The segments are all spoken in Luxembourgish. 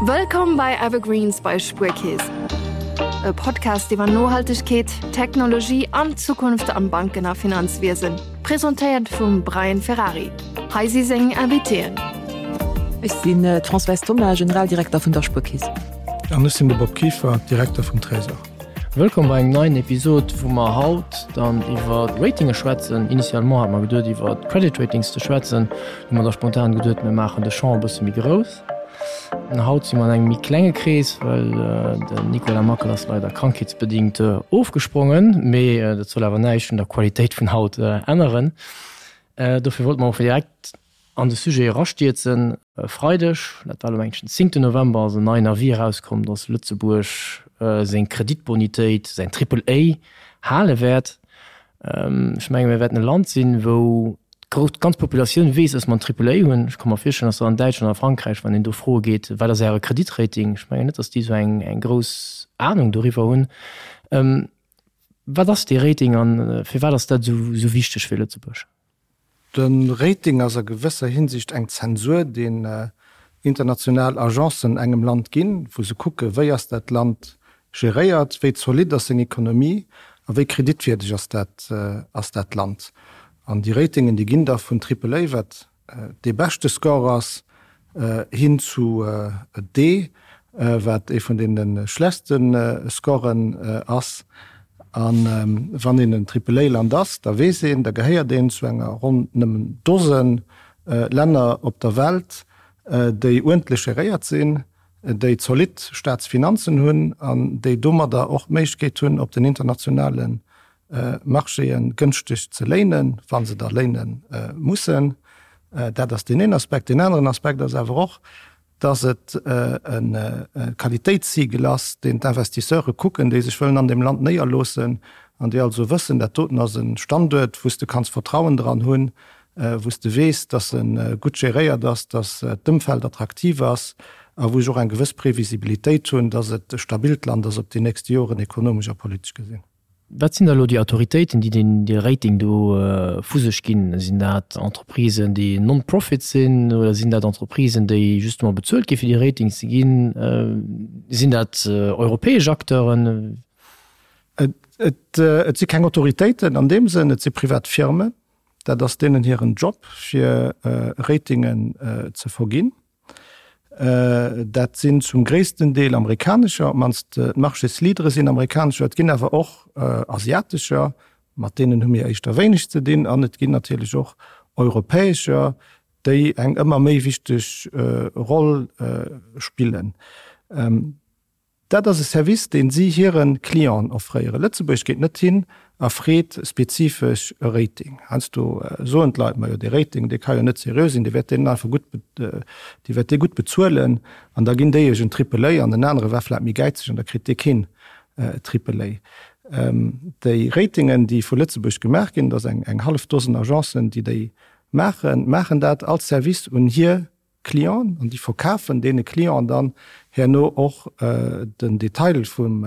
Wëllkomm bei Evergreens bei Spuerkeess. E Podcast iwwer Nohaltegkeet, Technologie an d'Zukunft am Banken a Finanzwiesen. Presentéiert vum Brian Ferrari. Hei si seng Invitéen. Ech sinn d'Françoise Thoma, Generaldirekter vun der Spuerkeess. An ech sinn de Bob Kieffer, Direkter vum Trésor. Wëllkomm bei engem neien Episod, wou mer haut dann iwwer Ratinge schwätzen. Initialement hat mer geduet iwwer Credit Ratings ze schwätzen, hu mer da spontan geduet, mir maachen de Champ e bësse méi grouss. Haut si mer an engem méi klenge Krees, well den Nicolas Mackel ass leider krankheetsbedingt ofgesprongen, mee dat soll awer näischt un der Qualitéit vun haut änneren. Dofir wollte mer och direkt an de Sujet erastierzen. E Freideg, dat war elo mengen ech den zéngten November, ass en neien Avis erauskomm, datt Lëtzebuerg seng Kreditbonitéit, säin Triple A, hale wäert. Ech menge mir wäerten e Land sinn, wou d'ganz Populatioun weess, datt mer en Triple A hunn. Ech ka mer virstellen, datt an Däitschland a Frankräich, wann een do froe geet, wat ass Äre Kreditrating, ech mengen net, datt déi esou eng grouss Anung doriwwer hunn. Wat ass dee Rating a firwat ass dat esou wichteg fir Lëtzebuerg? De Rating ass a gewësser Hinsicht eng Zensur, deen international Agencen engem Land ginn, wou se kucke wéi ass dat Land geréiert, wéi zolidd ass seng Ekonomie a wéi kreditwierdeg ass dat ass dat Land. An déi Ratingen, déi ginn da vun Triple A, wat dee beschte Score ass, hin zu D, wat ee vun deene schlechtste Scoren ass. A wann een en Triple-A-Land ass, da weess een, da gehéiert een zu enger ronn nëmmen Dose Länner op der Welt, déi uerdentlech geréiert sinn, déi zolidd Staatsfinanzen hunn an déi domadder och d'Méiglechkeet hunn, op den internationale Marchéë gënschteg ze léinen, wa se da léine mussen. Dat ass deen een Aspekt. Deen aneren Aspekt ass awer och, dass et e Qualitéitssiegel ass, deen d'Investisseure kucken, déi sech wëllen an deem Land néierloossen an déi also wëssen, dat doten ass e Standuert, wou s de kanns Vertrauen dran hunn, wou s de weess, dass e gutt geréiert ass, dass d'Ëmfeld attraktiv ass a wou ech och eng gewëss Previsibilitéit hunn, dass et e stabilt Land ass op déi nächste Joren, ekonomesch a politesch gesinn. Wat sinn da elo déi Autoritéiten, déi deen dee Rating do vu sech ginn? Sinn dat Entreprisen, déi non-profit sinn oder sinn dat Entreprisen, déi justement bezuelt gi fir déi Ratings ze ginn? Sinn dat europäesch Acteuren? Et et si keng Autoritéiten an deem Sënn, et si privat Firmen. Dat ass deenen hiren Job, fir Ratingen ze verginn. Dat sinn zum gréissten Deel amerikanescher, op d'mannst d'Marchésleadere sinn amerikanescher. Et ginn awer och asiatescher, mat deenen hu mir éischter wéineg ze dinn. An et ginn natierlech och europäescher, déi eng ëmmer méi wichteg Roll spillen. Dat ass e Service, deen si hire Clienten offréieren. Lëtzebuerg geet net hin a freet spezifesch e Rating. Heiansdo soen d'Leit, Majo, dee Rating, dee ka jo net seriö sinn, dee wäert deenen einfach gutt, dee wäert dee gutt bezuelen an da ginn déi iech en Triple A an den anere war vläicht méi gäizeg an da kritt dee keen Triple A. Déi Ratingen, déi vu Lëtzebuerg gemaach ginn, et ass eng hallef Dosen Agencen, déi déi maachen, maachen dat als Service un hir Clienten an déi verkafen deene Clienten dann herno och den Detail vum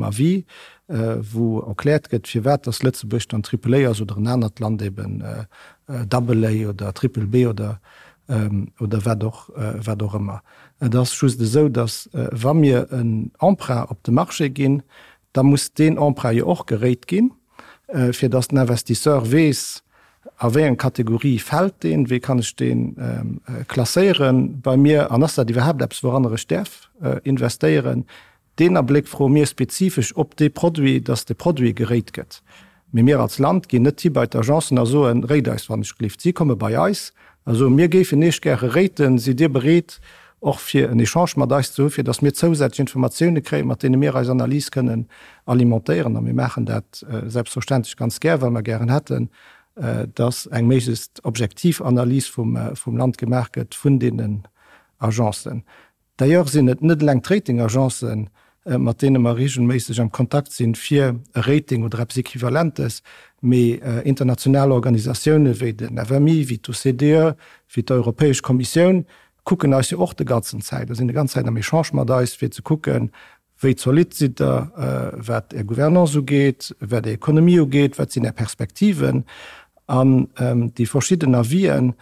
Avis, wou erkläert gëtt, firwat dass Lëtzebuerg dann Triple A ass oder en anert Land eben Double A oder Triple B oder oder wat och wat och ëmmer. Et ass just esou, dass wa mir en Emprunt op de Marché ginn, da muss deen Emprunt jo och gerate ginn, fir dass den Investisseur weess, a wéi eng Kategorie fält deen, wéi kann ech dee klasséiere bei mir an ass dat iwwerhaapt eppes, wouranner ech däerf investéieren. Deen Abléck froe mir spezifesch op dee Produit, dass de Produit gerate gëtt. Mee mir als Land ginn net hi bei d'Agencen a soen, Rate eis wann ech gelift. Si komme bei eis a soen, Mir géifen Iech gäre raten, sidd Dir bereet och fir en Echange mat eis ze hu fir datt mir zousätzlech Informatioune kréien, mat deene mir eis Analys kënnen alimentéieren. A mir maachen dat selbstverständlech ganz gär, well mer gären hätten, datt eng méiglechst objektiv Analys vum Land gemaach gëtt vun deenen Agencen. D'ailleurs sinn et net eleng d'Ratingagencen, mat deene mer regelméisseg am Kontakt sinn, fir e Rating oder eppes Equivalentes, mee international Organisatioune wéi den FMI, wéi d'OCDE, wéi d'Europäesch Kommissioun kucken eis jo och de ganzen Zäit a sinn de ganz Zäit am Echange mat eis, fir ze kucken, wéi zolidd sidd Der, wat Är Gouvernance ugeet, wat Är Ekonomie ugeet, wat sinn Är Perspektiven. An déi verschidden Avisen.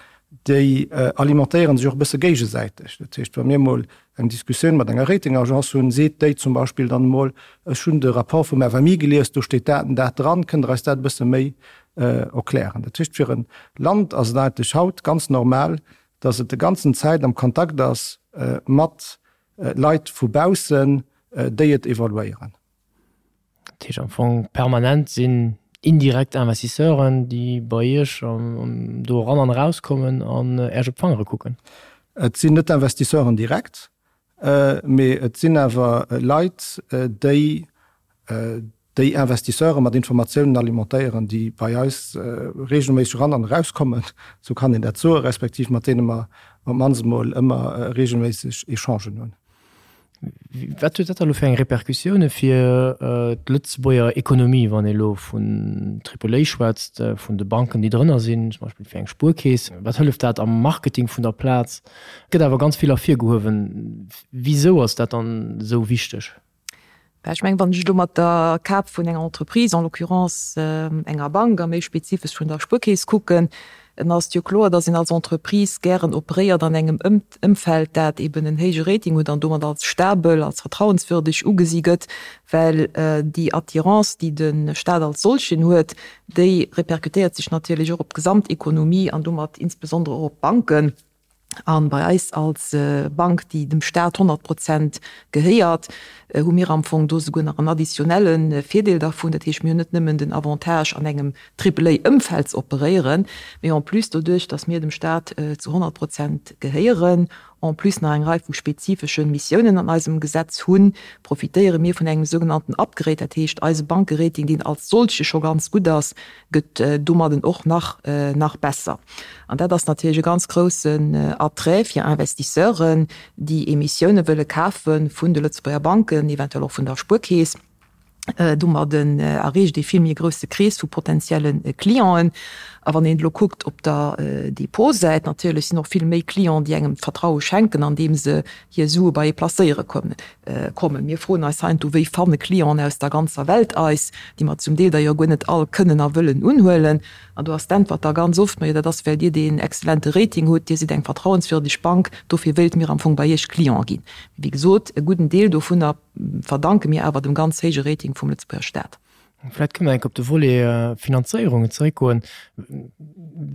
Déi alimentéiere sech och e bësse géigesäiteg. Dat heescht, wa mir emol eng Diskussioun mat enger Ratingagence hunn, seet déi zum Beispill dann emol, ech hunn de Rapport vum FMI gelies, do steet dat an dat dran, kënnt Der eis dat e bësse méi erklären? Dat heescht, fir e Land ass et eigentlech haut ganz normal, datt et de ganzen Zäit am Kontakt ass mat Leit vu baussen, déi et evaluéieren. Dat heescht am Fong permanent sinn indirekt Investisseuren, déi bei Iech do eran an erauskommen an Äech op d'Fangere kucken. Et sinn net Investisseuren direkt, mee et sinn awer Leit, déi déi Investisseure mat Informatiounen alimentéieren, déi bei eis reegelméisseg eran an erauskommen, esou kann een dat soen, respektiv mat deene mer op d'mannst emol ëmmer reegelméisseg Echangen hunn. Wat huet dat da elo fir eng Repercussioune fir d'Lëtzebuerger Ekonomie, wann ee elo vun Triple A schwätzt, vun de Banken, déi drënner sinn, zum Beispill fir eng Spuerkeess? Wat hëlleft dat am Marketing vun der Plaz? Et gëtt awer ganz vill ervirgehuewen. Wisou ass dat dann esou wichteg? Well ech mengen, wann ech elo mat der Kap vun enger Entreprise, en l'occurrence enger Bank a méi spezifesch vun der Spuerkeess kucken, dann ass et jo kloer, dass een als Entreprise gären operéiert an engem Ëmfeld, dat eben en héije Rating huet an domat als stabel, als vertrauenswürdeg ugesi gëtt, well déi Attirance, déi de Stat als solchen huet, déi répercutéiert sech natierlech och op d'Gesamtekonomie an domat insbesondere och op d'Banken. An bei eis als Bank, déi dem Staat 100 Prozent gehéiert, hu mir am Fong do souguer nach en additionnelle Virdeel dervun. Dat heescht, mir hunn net nëmmen den Avantage, an engem Triple-A-Ëmfeld ze operéieren, mee en plus doduerch, datt mir dem Staat zu 100 Prozent gehéieren, en plus nach eng Rei vu spezifesche Missiounen an eisem Gesetz hunn, profitéiere mir vun engem sougenannten Upgrade. Dat heescht, eise Bankerating, deen als solche scho ganz gutt ass, gëtt domadden och nach nach besser. An dat ass natierlech e ganz groussen Attrait fir Investisseuren, déi Emissioune wëlle kafe vun de Lëtzebuerger Banken, eventuell och vun der Spuerkeess. Domadden erreecht ee vill méi e grousse Krees vu potentielle Clienten. A wann een elo kuckt op der Depotsäit, natierlech sinn och vill méi Clienten, déi engem d'Vertraue schenken, andeem se hir Sue bei ee placéiere kommen. Mir froen eis heiansdo, wéi fanne Clienten aus der ganzer Welt eis, déi mer zum Deel der jo guer net all kënnen a wëllen unhuelen. An do ass d'Äntwert da ganz oft, Majo, dat ass, well Dir deen exzellente Rating hutt, Dir sidd eng vertrauenswürdeg Bank, dofir wéilte mir am Fong bei Iech Client ginn. Mee wéi gesot, e gudden Deel dovunner verdanke mir awer dem ganz héije Rating vum Lëtzebuerger Staat. Vläicht kënne mer enk op de Volet Finanzéierungen zeréckgoen.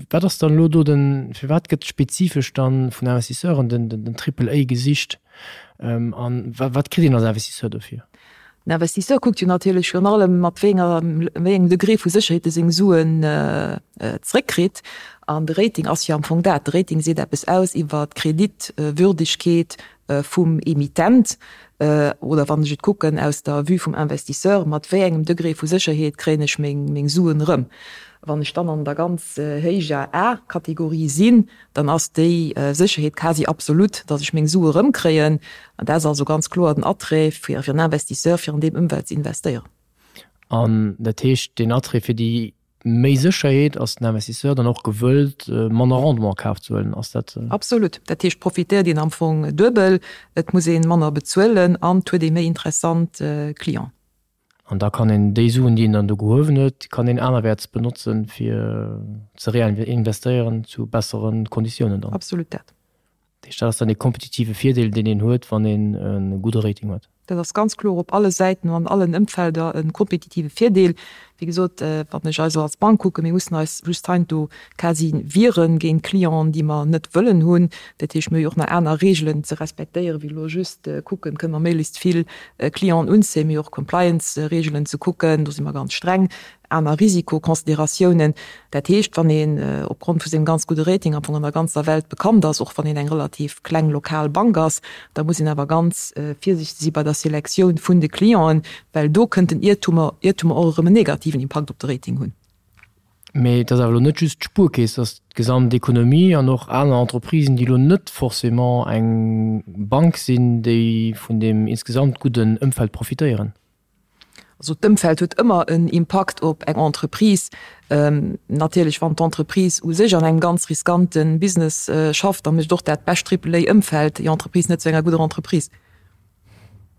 Wat ass dann elo do den, firwat gëtt spezifesch dann vun Investisseuren den, den Triple A gesicht an wat kritt een als Investisseur dofir? Den Investisseur kuckt jo natierlech virun allem, mat wéi enger, wéi engem Degré vu Sécherheet e seng Suen zeréckkritt. An de Rating ass jo am Fong dat. De Rating seet eppes aus iwwer d'Kreditwürdegkeet vum Emittent, oder wann ech et kucken aus der Vue vum Investisseur, mat wéi engem Degré vu Sécherheet kréien ech meng Suen erëm. Wann ech dann an der ganz héijer A-Kategorie sinn, dann ass déi Sécherheet quasi absolut, datt ech meng Sue erëmkréien. An dat ass also ganz kloer den Attrait fir en Investisseur, fir an deem Ëmfeld ze investéieren. An dat heescht, deen Attrait fir déi Méi Sécherheet, ass den Investisseur dann och gewëllt, manner Rendement a Kaf ze huelen? Ass dat. Absolut. Dat heescht, profitéiert een am Fong duebel, et muss ee manner bezuelen an et huet ee méi interessant Clienten. An da kann een déi Suen, déi een dann do gehuewen huet, kann een anerwäerts benotzen, fir ze reinvestéieren zu bessere Konditiounen dann. Absolut dat. Dat heescht, dat ass dann dee kompetitive Virdeel, deen een huet, wann een e gudde Rating huet. Dat ass ganz kloer op alle Säiten an an allen Ëmfelder e kompetitive Virdeel. Wéi gesot, wann ech eis elo als Bank kucken, mir mussen eis just heiansdo quasi wiere géint Clienten, déi mer net wëllen hunn. Dat heescht, mir hu jo och nach aner Reegelen ze respektéieren, wéi elo just kucken, kënne mer méiglechst vill Clienten unzéien. Mir hu jo och Compliance-Reegelen ze kucken, do si mer ganz streng. aner Risikoconsideratiounen. Dat heescht, wann een opgrond vu sengem ganz gudde Rating am Fong an der ganzer Welt bekannt ass, och wann een eng relativ kleng lokal Bank ass, da muss een awer ganz virsiichteg si bei der Selektioun vun de Clienten, well do kënnten Iertumer, Iertumer och erëm en negativen Impakt op de Rating hunn. Mee et ass awer elo net just d'Spuerkeess, et ass d'gesamt Ekonomie an och aner Entreprisen, déi elo net forcément eng Bank sinn, déi vun deem insgesamt gudden Ëmfeld profitéieren. Also d'Ëmfeld huet ëmmer en Impakt op eng Entreprise. Natierlech wann d'Entreprise u sech an engem ganz riskante Business schafft, da mécht och dat bescht Triple-A-Ëmfeld déi Entreprise net zu enger gudder Entreprise.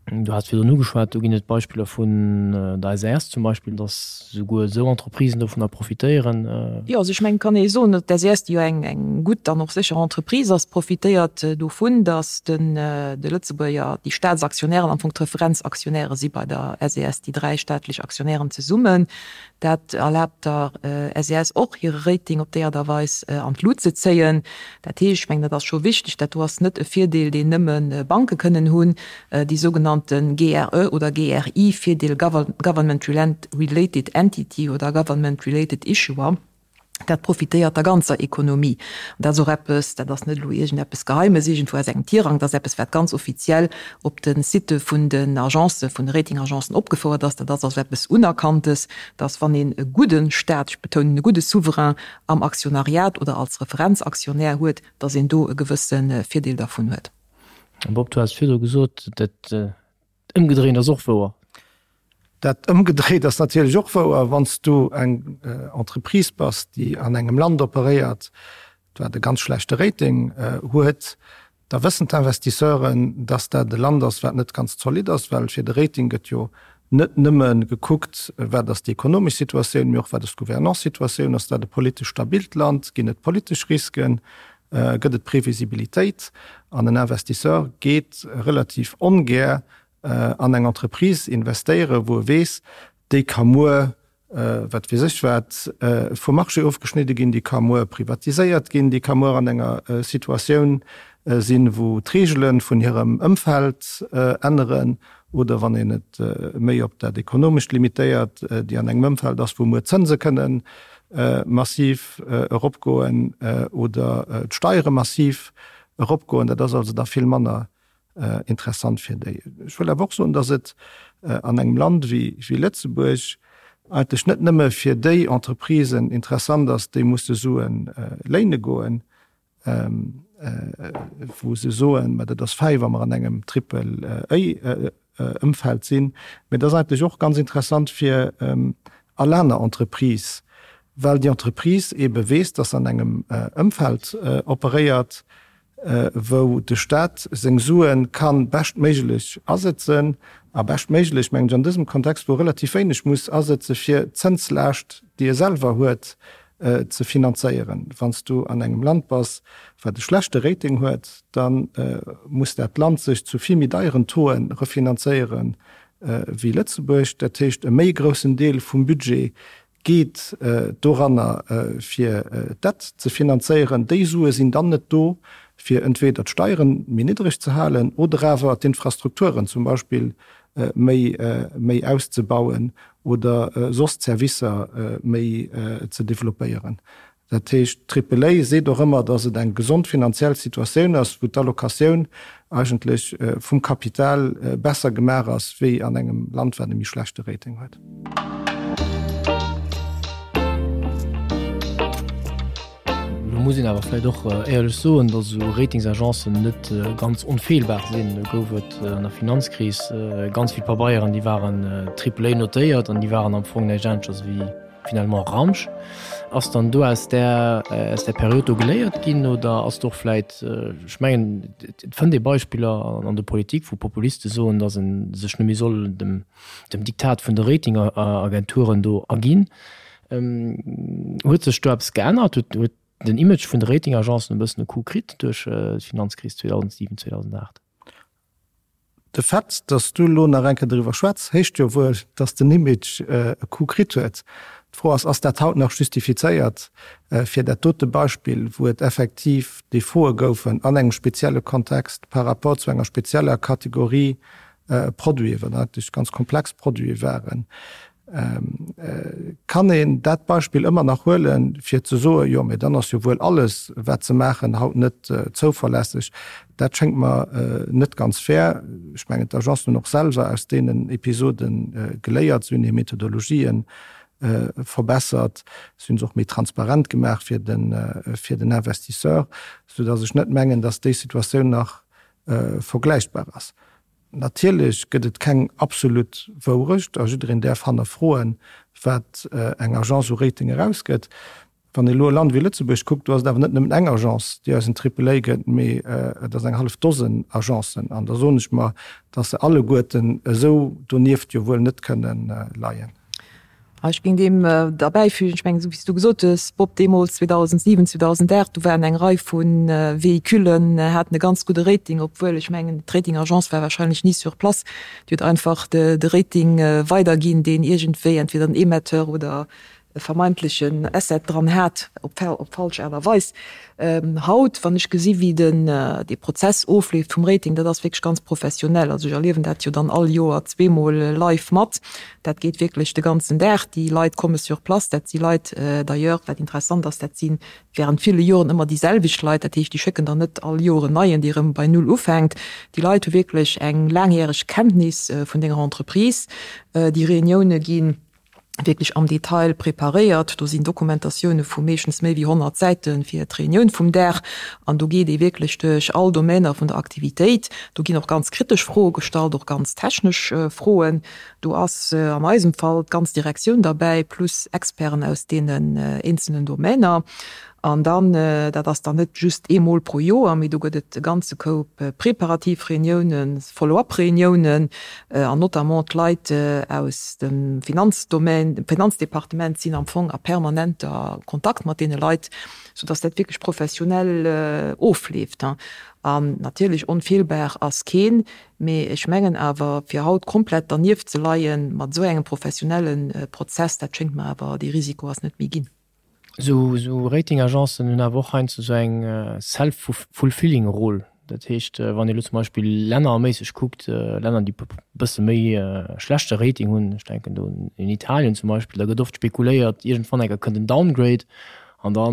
Du has virdrun ugeschwat, do ginn et Beispiller vun der SAS zum Beispill, datt souguer esou Entreprisen dovunner profitéieren. Jo, also ech mengen, et kann ee soen, datt d'SAS, déi jo eng eng gutt an och sécher Entreprise ass, profitéiert dovun, datt den de Lëtzebuerger, déi Staatsaktionären am Fong d'Referenzaktionäre si bei der SAS, déi dräi staatlech Aktionären zesummen. Dat erlaabt der SES och, hire Rating op déi Aart a Weis an d'Lut ze zéien. Dat heescht, ech mengen, dat ass scho wichteg, dat do ass net e Virdeel, deen nëmme Banke kënnen hunn, déi sougenannte GRE oder GRI-Virdeel, Government Related Entity oder Government Related Issuer. Dat profitéiert der ganzer Ekonomie. An dat ass och eppes, dat ass net elo iergendeppes Geheimes iergendwou aus engem Tirang, dat ass eppes, wat ganz offiziell op de Sitte vun den Agencen, vun de Ratingagencen opgefouert ass. Dat ass also eppes Unerkanntes, dass wann een e gudde Stat, ech betounen e gudde Souverain am Aktionariat oder als Referenzaktionär huet, dass een do e gewësse Virdeel dervun huet. Bob, du has virdru gesot, dat Ëmgedréint ass och wouer. Dat ëmgedréit ass natierlech och wouer. Wann s du eng Entreprise bass, déi an engem Land operéiert, wat e ganz schlechte Rating huet, da wëssen d'Investisseuren, dass dat e Land ass, wat net ganz zolidd ass, well fir de Rating gëtt jo net nëmme gekuckt, wat ass déi ekonomesch Situatioun, mee och wat ass d'Gouvernance-Situatioun, ass dat e politesch stabilt Land, ginn et politesch Risken, gëtt et Previsibilitéit an en Investisseur geet relativ ongär an eng Entreprise investéieren, wou e weess, déi ka muer, wat weess ech wat, vum Marché ofgeschnidde ginn, déi ka muer privatiséiert ginn, déi ka muer an enger Situatioun sinn, wou d'Reegele vun hirem Ëmfeld änneren oder, wann een et méi op dat Ekonomescht limitéiert, déi an engem Ëmfeld ass, wou muer d'Zënse kënnen massiv eropgoen oder d'Steiere massiv eropgoen. Dat ass also da vill manner interessant fir déi. Ech wëll awer och soen, datt et an engem Land wéi Lëtzebuerg eigentlech net nëmme fir déi Entreprisen interessant ass, déi musse Sue léine goen, wou se soen, mä dat ass fäi, wa mer an engem Triple-A-Ëmfeld sinn. Mä et ass eigentlech och ganz interessant fir all aner Entreprise, well déi Entreprise eebe weess, dass se an engem Ëmfeld operéiert, wou de Stat seng Sue ka beschtméiglech asëtzen, a beschtméiglech mengen ech an dësem Kontext, wou e relativ wéineg muss asëtze fir d'Zënslaascht, déi e selwer huet, ze finanzéieren. Wann s du an engem Land bass, wat e schlechte Rating huet, da muss dat Land sech zu vill méi deieren Tauxen refinanzéiere wéi Lëtzebuerg. Dat heescht, e méi groussen Deel vum Budget geet doranner, fir d'Dett ze finanzéieren. Déi Sue sinn dann net do, fir entweder d'Steiere méi niddreg ze halen oder awer d'Infrastrukturen zum Beispill méi méi auszebauen oder soss d'Servicer méi ze developpéieren. Dat heescht, d'Triple A seet och ëmmer, datt et eng gesond finanziell Situatioun ass, wou d'Allocatioun eigentlech vum Kapital besser gemaach ass wéi an engem Land, wat e méi schlechte Rating huet. Lo muss een awer vläicht och éierlech soen, datt esou Ratingsagencen net ganz onfeelbar sinn. Do gouf et an der Finanzkris ganz vill Pabeieren, déi waren Triple A notéiert an déi waren am Fong näischt aneschters wéi finalement Ramsch. Ass dann do aus där, aus där Period do geléiert ginn oder ass do och vläicht, ech mengen, et fënnt ee Beispiller an der Politik, wou Populiste soen, datt e sech net méi soll dem, dem Diktat vun de Ratingagenturen do erginn. Huet sech do eppes geännert? Huet den Image vun de Ratingagencen e bëssen e Coup kritt duerch d'Finanzkris 2007, 2008? De Fait, datt s du elo nach eng Kéier doriwwer schwätz, heescht jo wuel, datt den Image e Coup kritt huet. D'Fro ass, Ass dat haut nach justifizéiert fir dat dote Beispill, wou et effektiv Defaute goufen an engem spezielle Kontext par rapport zu enger spezieller Kategorie Produiten, wat eigentlech ganz komplex Produite waren? Kann een dat Beispill ëmmer nach huelen, fir ze soen, jo, mee dann ass jo wuel alles, wat se maachen, haut net zouverlässeg? Dat schéngt mer net ganz fair. Ech mengen, d'Agencen hunn och selwer aus deenen Episode geléiert. Se hunn hir Methodologien verbessert, se hunn se och méi transparent gemaach fir den Investisseur, soudass ech net mengen, dass déi Situatioun nach vergläichbar ass. Natierlech gëtt et keng absolut Wourecht a jiddereen däerf hannerfroen, wat eng Agence u Rating erausgëtt. Wann ee elo e Land wéi Lëtzebuerg kuckt, do ass et awer net nëmmen eng Agence, déi eis en Triple-A gëtt, mee et ass eng hallef Dosen Agencen. An da soen ech mer, dass se alleguerten esou donieft jo wuel net kënnen leien. Ech géing deem derbäifügen, ech mengen, esou wéi s du gesot hues, Bob, deemools 2007, 2008, do waren eng Rei vu Véhiculen, haten e ganz gudde Rating, obwuel, ech mengen, d'Rating-Agence war wahrscheinlech ni sur place, déi huet einfach de Rating weiderginn, deen iergendwéi entweder den Emetteur oder e vermeintlechen Asset dran hat, op op falsch Aart a Weis. Haut, wann ech gesi wéi den dee Prozess ofleeft vum Rating, dat ass wierklech ganz professionell. Also ech erliewen dat jo dann all Joer zweemol live mat. Dat geet wierklech de ganzen Dag. Déi Leit komme sur place. Dat si Leit d'ailleurs, wat interessant ass, dat si während ville Joren ëmmer déi selwecht Leit. Dat heescht, déi schécken der net all Joer en neien, dee erëm bei Null ufänkt. Déi Leit hu wierklech eng laangjäreg Kenntnis vun denger Entreprise. Déi Reunioune ginn wierklech am Detail preparéiert. Do sinn Dokumentatioune vu meeschtens méi wéi 100 Säite fir d'Reunioun vum Dag. An do geet ee wierklech duerch all Domainer vun der Aktivitéit. Do ginn och ganz kritesch Froe gestallt, och ganz technesch Froen. Do ass an eisem Fall d'ganz Direktioun derbäi, plus Experten aus deenen eenzelnen Domainer. An dann, dat ass dann net just eemol pro Joer, mee do gëtt et e ganze Koup preparativ Reuniounen, Follow-up-Reuniounen, an notamment d'Leit aus dem Finanzdomaine, dem Finanzdepartement sinn am Fong a permanenter Kontakt mat deene Leit, soudass dat wierklech professionell ofleeft. An natierlech onfeelbar ass keen, mee ech mengen awer, fir haut komplett dernieft ze leie mat esou engem professionelle Prozess, dat schéngt mer awer, dee Risiko ass net méi ginn. Esou Ratingagencen hunn awer och heiansdo esou eng self-fulfilling Rôle. Dat heescht, wann ee elo zum Beispill lännerméisseg kuckt, Länner, déi e bësse méi schlechte Rating hunn, ech denken do un Italien zum Beispill, da gëtt oft spekuléiert, iergendwann enker kënnt en Downgrade an da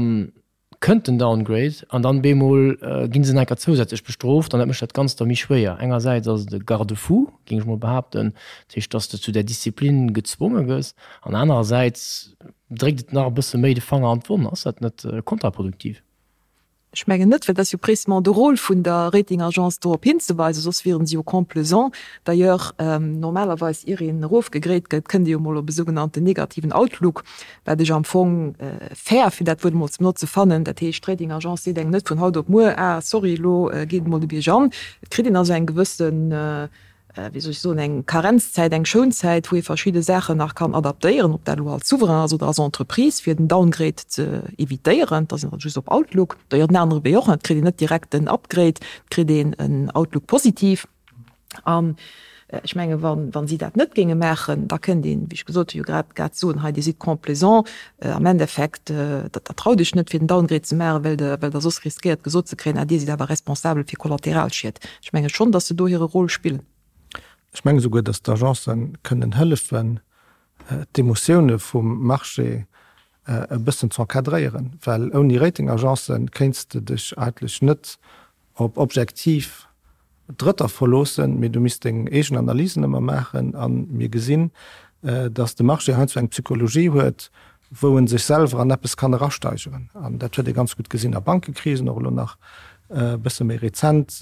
kënnt den Downgrade an dann bemol gi se nach enker zousätzlech bestrooft an dat mécht dat Ganzt da méi schwéier. Engersäits ass et e Garde-fou, géing ech mol behaapten, dat heescht, dass de zu där Disziplin gezwonge gëss an anerersäits dréckt et nach e bësse méi de Fanger an d'Wonn. Ass dat net kontraproduktiv? Ech mengen net, well et ass jo précisément de Rôle vun der Rating-Agence dorop hinzeweisen, soss wieren se jo complaisant. D'ailleurs, normalerweis, ier een erofgegréit gëtt, kënnt ee jo mol op e sougenannten negativen Outlook, wat ech am Fong fair, fir dat Wuert emol ze benotze, fannen. Dat heescht, d'Rating-Agence seet engem net vun haut op muer, Ah, sorry, elo geet et mol de Bierg an. Et kritt een also eng gewëssen wéi soll ech soen, eng Karenzzäit, eng Schounzäit, wou ee verschidde Saachen nach kann adaptéieren, ob dat elo als Souverain ass oder als Entreprise, fir den Downgrade ze evitéieren. Da sinn mer just op Outlook. D'ailleurs den anere Wee och, et kritt een net direkt en Upgrade, et kritt een en Outlook positiv. An ech menge wa si dat net géinge maachen, da kënnt een, wéi ech gesot hunn, jo grad grad soen, hei Dir sidd complaisant, am Endeffekt, der traut Iech net fir den Downgrade ze maachen, well Der well Der soss riskéiert gesot ze kréien, ah Dir sidd awer responsabel fir Kollateralschied. Ech menge schonn, datt se do hire Rôle spillen. Ech menge souguer, datt d'Agencen kënnen hëllefen, d'Emotioune vum Marché e bëssen z'encadréieren, well ouni Ratingagencen kéints de dech eigentlech net op objektiv Drëtter verloossen, mee du misst deng eegen Analysen ëmmer maachen. A mir gesinn, datt de Marché heiansdo eng Psychologie huet, wou e sech selwer an eppes kann erasteigeren. An dat huet ee ganz gutt gesinn a Bankekrisen, och elo nach e bësse méi rezent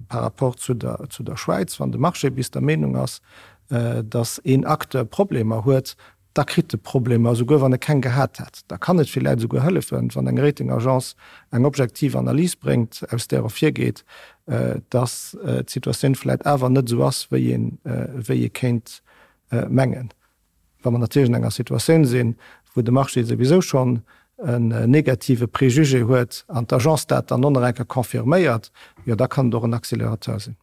par rapport zu der, zu der Schwäiz. Wann de Marché bis der Meenung ass, datt een Acteur Problemer huet, da kritt e Problemer, esouguer wann e keng gehat hätt. Da kann et villäit esouguer hëllefen, wann eng Ratingagence eng objektiv Analys bréngt, aus där ervirgeet, dass d'Situatioun vläit awer net esou ass, wéi een, wéi ee kéint mengen. Wa mer natierlech an enger Situatioun sinn, wou de Marché souwisou schonn en negative Préjugé huet an d'Agence dat dann och nach eng Kéier confirméiert, jo da kann et och en Accélérateur sinn.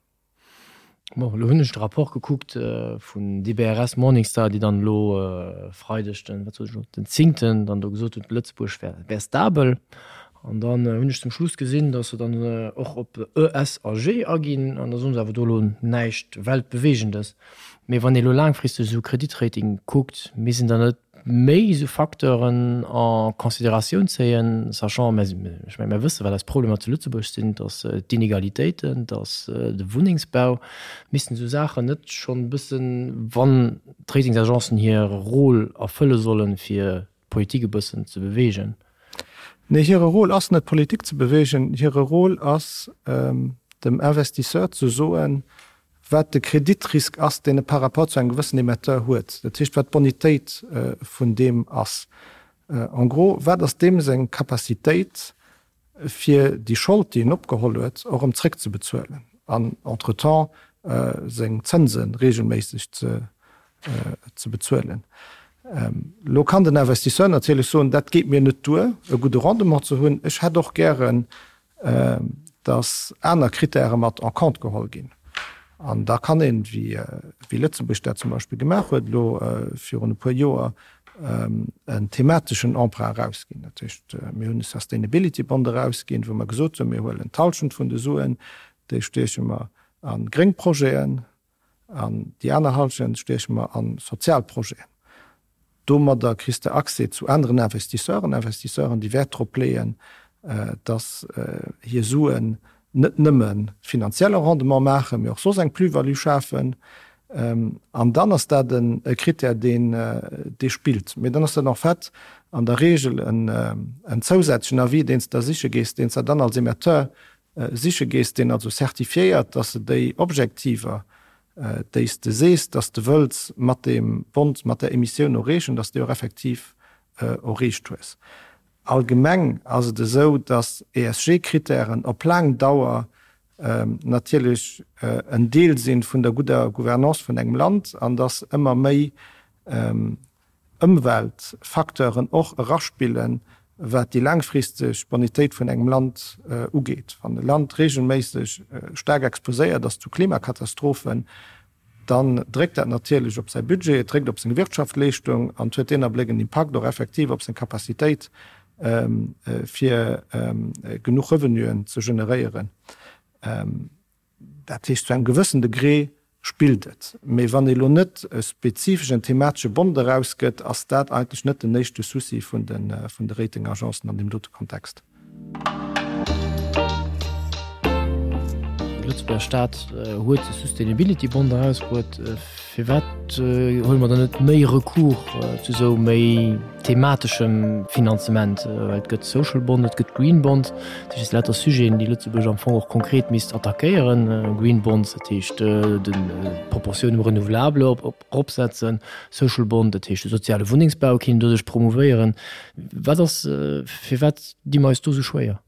Bon, elo hunn ech de Rapport gekuckt vun DBRS Morningstar, déi dann elo Freideg den, wat sot ech elo, den zéngten dann do gesot hunn, Lëtzebuerg wär, wär stabel. An dann hunn ech zum Schluss gesinn, datt se dann och op E, S a G aginn an da soen se awer do elo näischt Weltbewegendes. Mee wann ee elo laangfristeg esou Kreditrating kuckt, misst een dann net méi esou Facteuren en Considératioun zéien, sachant, mä ech menge mir wësse wat eis Problemer zu Lëtzebuerg sinn, dass d'Inegalitéiten, dass de Wunnengsbau, missten esou Saachen net schonn e bëssen, wann d'Ratingsagencen hir Rôle erfëlle sollen, fir d'Politik e bëssen ze beweegen? Nee, hire Rôle ass net d'Politik ze beweegen, hire Rôle ass dem Investisseur ze soen, wat de Kreditrisk ass, deen e par rapport zu engem gewëssen Emetteur huet, dat heescht wat d'Bonitéit vun deem ass. En gros, wat ass deem seng Capacitéit, fir déi Schold, déi en opgeholl huet, och erëm zréckzebezuelen an entretemps seng Zënse regelméisseg ze bezuelen. Elo kann den Investisseur natierlech soen, dat geet mir net duer, e gudde Rendement ze hunn, ech hätt och gären, dass aner Kritäre mat en compte geholl ginn. An da kann een, wéi Lëtzebuerg dat zum Beispill gemaach huet elo virun e puer Joer, en themateschen Emprunt erausginn. Dat heescht, mir hunn e Sustainability Bond erausginn, wou mer gesot hunn, mir huelen d'Hallschent vun de Suen, déi stieche mer a gréng Projeten an déi aner Hallschent stieche mer a sozial Projeten. Domadder kriss de Accès zu aneren Investisseuren, Investisseuren, déi Wäert drop leeën, dass hir Suen net nëmme finanzielle Rendement maachen, mee och soss eng Plus-value schafen. An dann ass dat e Krittär, deen dee spillt. Mee dann ass dat en fait an der Regel en zousätzlechen Avis, deen s de da siche gees, deen s de dann als Emetteur siche gees, deen also certifiéiert, dass de déi Objektiver, déi s de sees, dass de wëlls mat deem Bond, mat där Emissioun erreechen, dass de déi och effektiv erreecht hues. Allgemeng ass et esou, dass ESG-Krittären op laang Dauer natierlech en Deel si vun der gudder Gouvernance vun engem Land an dass ëmmer méi Ëmweltfacteuren och eraspillen, wat déi laangfristeg Bonitéit vun engem Land ugeet. Wann e Land reegelméisseg staark exposéiert ass zu Klimakatastrophen, dann dréckt dat natierlech op säi Budget, et dréckt op seng Wirtschaftleeschtung an et huet deen Abléck en Impakt och effektiv op seng Capacitéit, fir genuch Revenuen ze generéieren. Dat heescht, zu engem gewëssen Degré spillt et. Mee wann ee lo net e spezifeschen thematesche Bond erausgëtt, ass dat eigentlech net den éischte Souci vun de Ratingagencen an deem dote Kontext. De Lëtzebuerger Staat huet de Sustainability Bond erausbruet. Firwat huele mer dann net méi Recours zu esou méi themateschem Finanzement? Well et gëtt Social Bond, et gëtt Green Bond, dat heescht lauter Sujeten, déi Lëtzebuerg am Fong och konkret misst attackéieren. Green Bonds, dat heescht d'Proportioun um Renouvelable eropsetzen, Social Bond, dat heescht de soziale Wunnengsbau kéint doduerch promouvéieren. Wat ass, firwat di mer eis do esou schwéier?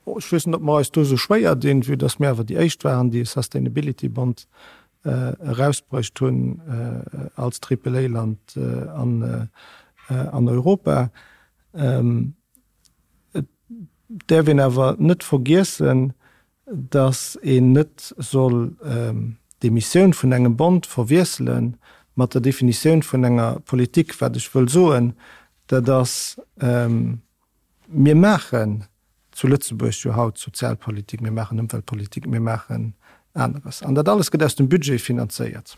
Ech weess net, ob mer eis do esou schwéier dinn, vue dass mir awer déi éischt waren, déi e Sustainability Bond erausbruecht hunn als Triple-A-Land an Europa. Et däerf een awer net vergiessen, dass een net soll d'Emissioun vun engem Bond verwiessele mat der Definitioun vun enger Politik. Wat ech wëll soen, dat ass, Mir maachen zu Lëtzebuerg jo haut Sozialpolitik, mir maachen Ëmweltpolitik, mir maachen aneres. An dat alles gëtt aus dem Budget finanzéiert.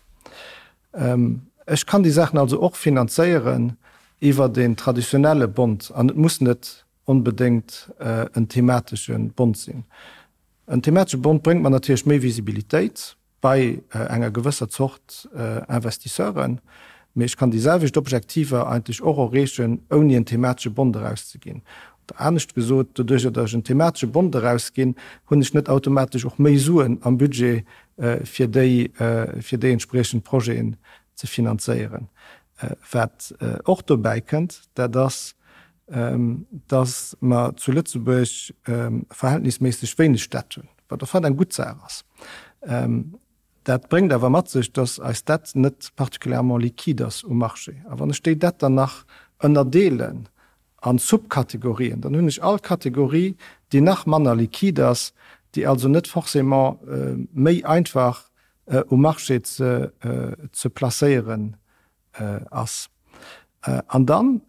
Ech kann déi Saachen also och finanzéieren iwwert een traditionelle Bond an et muss net onbedéngt en thematesche Bond sinn. En thematesche Bond bréngt mer natierlech méi Visibilitéit. bei enger gewësser Zort Investisseuren, mee ech kann déi selwecht Objektiver eigentlech och erreechen, ouni en thematesche Bond erauszeginn. Oder anescht gesot, doduerjer datt ech en thematesche Bond erausginn, hunn ech net automatesch och méi Suen am Budget, fir déi, fir déi entspriechend Projeten ze finanzéieren. Wat och dobäi kënnt, dat ass, datt mer zu Lëtzebuerg verhältnisméisseg wéineg Dett hunn, wat au fait eng gutt Saach ass. Dat bréngt awer mat sech, datt eis Dett net particulièrement liquide ass um Marché. A wann ech déi Dett dann nach ënnerdeelen a Subkategorien, dann hunn ech all Kategorie, déi nach manner liquide ass, déi also net forcément méi einfach um Marché ze placéieren ass. An dann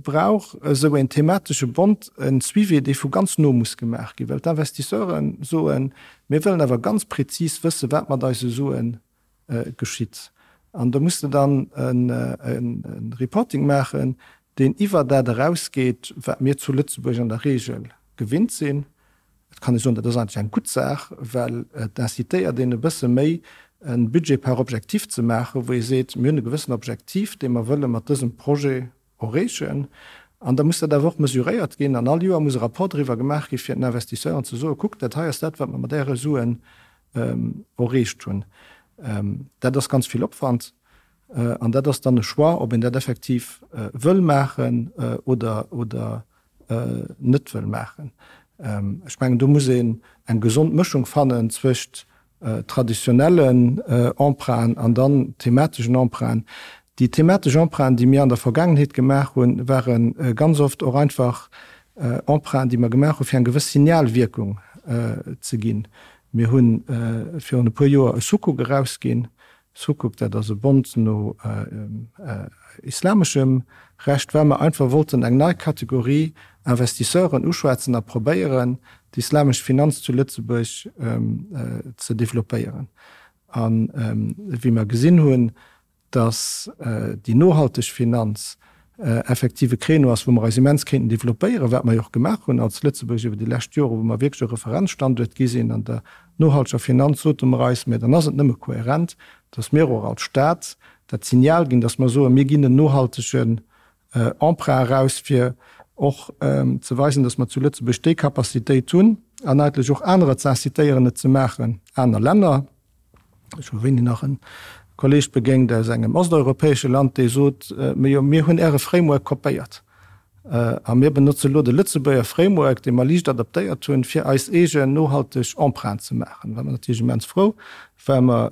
brauch esou een thematesche Bond e Suivi, dee vu ganz no muss gemaach ginn, well d'Investisseure soen, mir wëllen awer ganz prezis wëssen, wat mat eise Sue geschitt. An do muss de dann e Reporting maachen, deen iwwer dat erausgeet, wat mir zu Lëtzebuerg an der Regel gewinnt sinn. Et kann ee soen, dat ass eigentlech eng gutt Saach, well et incitéiert een e bësse méi e Budget par objectif ze maachen, wou ee seet, mir hunn e gewëssen Objektiv, dee mer wëlle mat dësem Projet erreechen. An da muss dat awer och mesuréiert ginn an all Joer muss e Rapport driwwer gemaach gi fir den Investisseuren ze soen, kuckt, dat hei ass dat, wat mer mat Äre Suen erreecht hunn. Dat ass ganz vill Opwand. An dat ass dann e Choix, ob een dat effektiv wëll maachen oder oder net wëll maachen. Ech mengen, do muss een eng gesond Mëschung fannen zwëscht traditionellen Emprunten an dann themateschen Emprunten. Déi thematesch Emprunten, déi mir an der Vergaangenheet gemaach hunn, ware ganz oft och einfach Emprunten, déi mer gemaach hu fir eng gewëss Signalwierkung ze ginn. Mir hu virun e puer Joer e Sukuk erausginn, Sukuk, dat ass e Bond no islameschem Recht, well mer einfach wollten eng nei Kategorie Investisseuren uschwätzen a probéieren, d'islamesch Finanz zu Lëtzebuerg ze developpéieren. A wéi mer gesinn hunn, datt déi nohalteg Finanz effektiv e Créneau ass, wou mer eis immens kéinten developpéieren, wat mer jo och gemaach hunn als Lëtzebuerg iwwer déi lescht Joren, wou mer wierklech e Referenzstanduert gi sinn an der nohalteger Finanz, sote mer eis, mä dann ass et nëmme kohärent, dass mir och als Stat dat Signal ginn, dass mer soen, mir ginn en nohaltegen Emprunt eraus, fir och ze weisen, dass mer zu Lëtzebuerg déi Capacitéit hunn an eigentlech och anerer ze incitéieren, et ze maachen, aner Länner. Ech hu wéini nach en Kolleg begéint aus engem osteuropäesche Land, dee sot, Mee jo, mir hunn Äre Framework kopéiert a mir benotze lo de Lëtzebuerger Framework, dee mer liicht adaptéiert hunn, fir eis eegen nohalteg Empreinte ze maachen. Da ware mer natierlech immens frou, well mer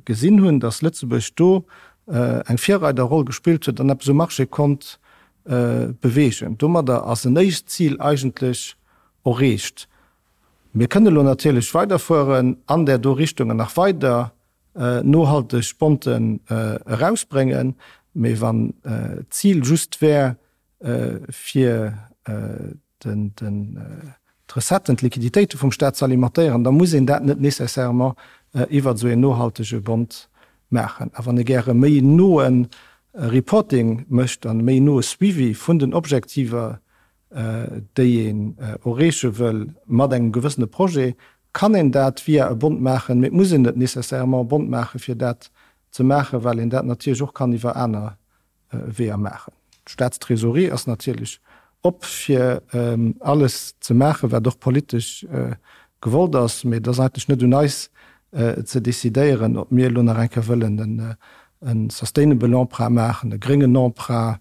gesinn hunn, datt Lëtzebuerg do eng Virreiderroll gespillt huet an eppes um Marché konnt beweegen. Domadder ass en éischt Zil eigentlech erreecht. Mir kënne lo natierlech weiderfueren an där do Richtung an nach weider nohalteg Bonten erausbréngen, mee wann d'Zil just wär, fir d'Recetten, d'Liquiditéite vum Staat ze alimentéieren, da muss een dat net nécessairement iwwert esou een nohaltege Bond maachen. A wann ee gäre méi noe Reporting mécht an e méi noe Suivi vun den Objektiver, déi een erreeche wëll mat engem gewëssene Projet, kann een dat via e Bond maachen, mee et muss een net nécessairement e Bond maachen, fir dat ze maachen, well een dat natierlech och kann iwwer aner Weeër maachen. D'Staatstrésorerie ass natierlech op, fir alles ze maachen, wat och politesch gewollt ass, mee et ass eigentlech net un eis ze decidéieren, ob mir elo nach eng Kéier wëllen e sustainable Emprunt maachen, e gréngen Emprunt,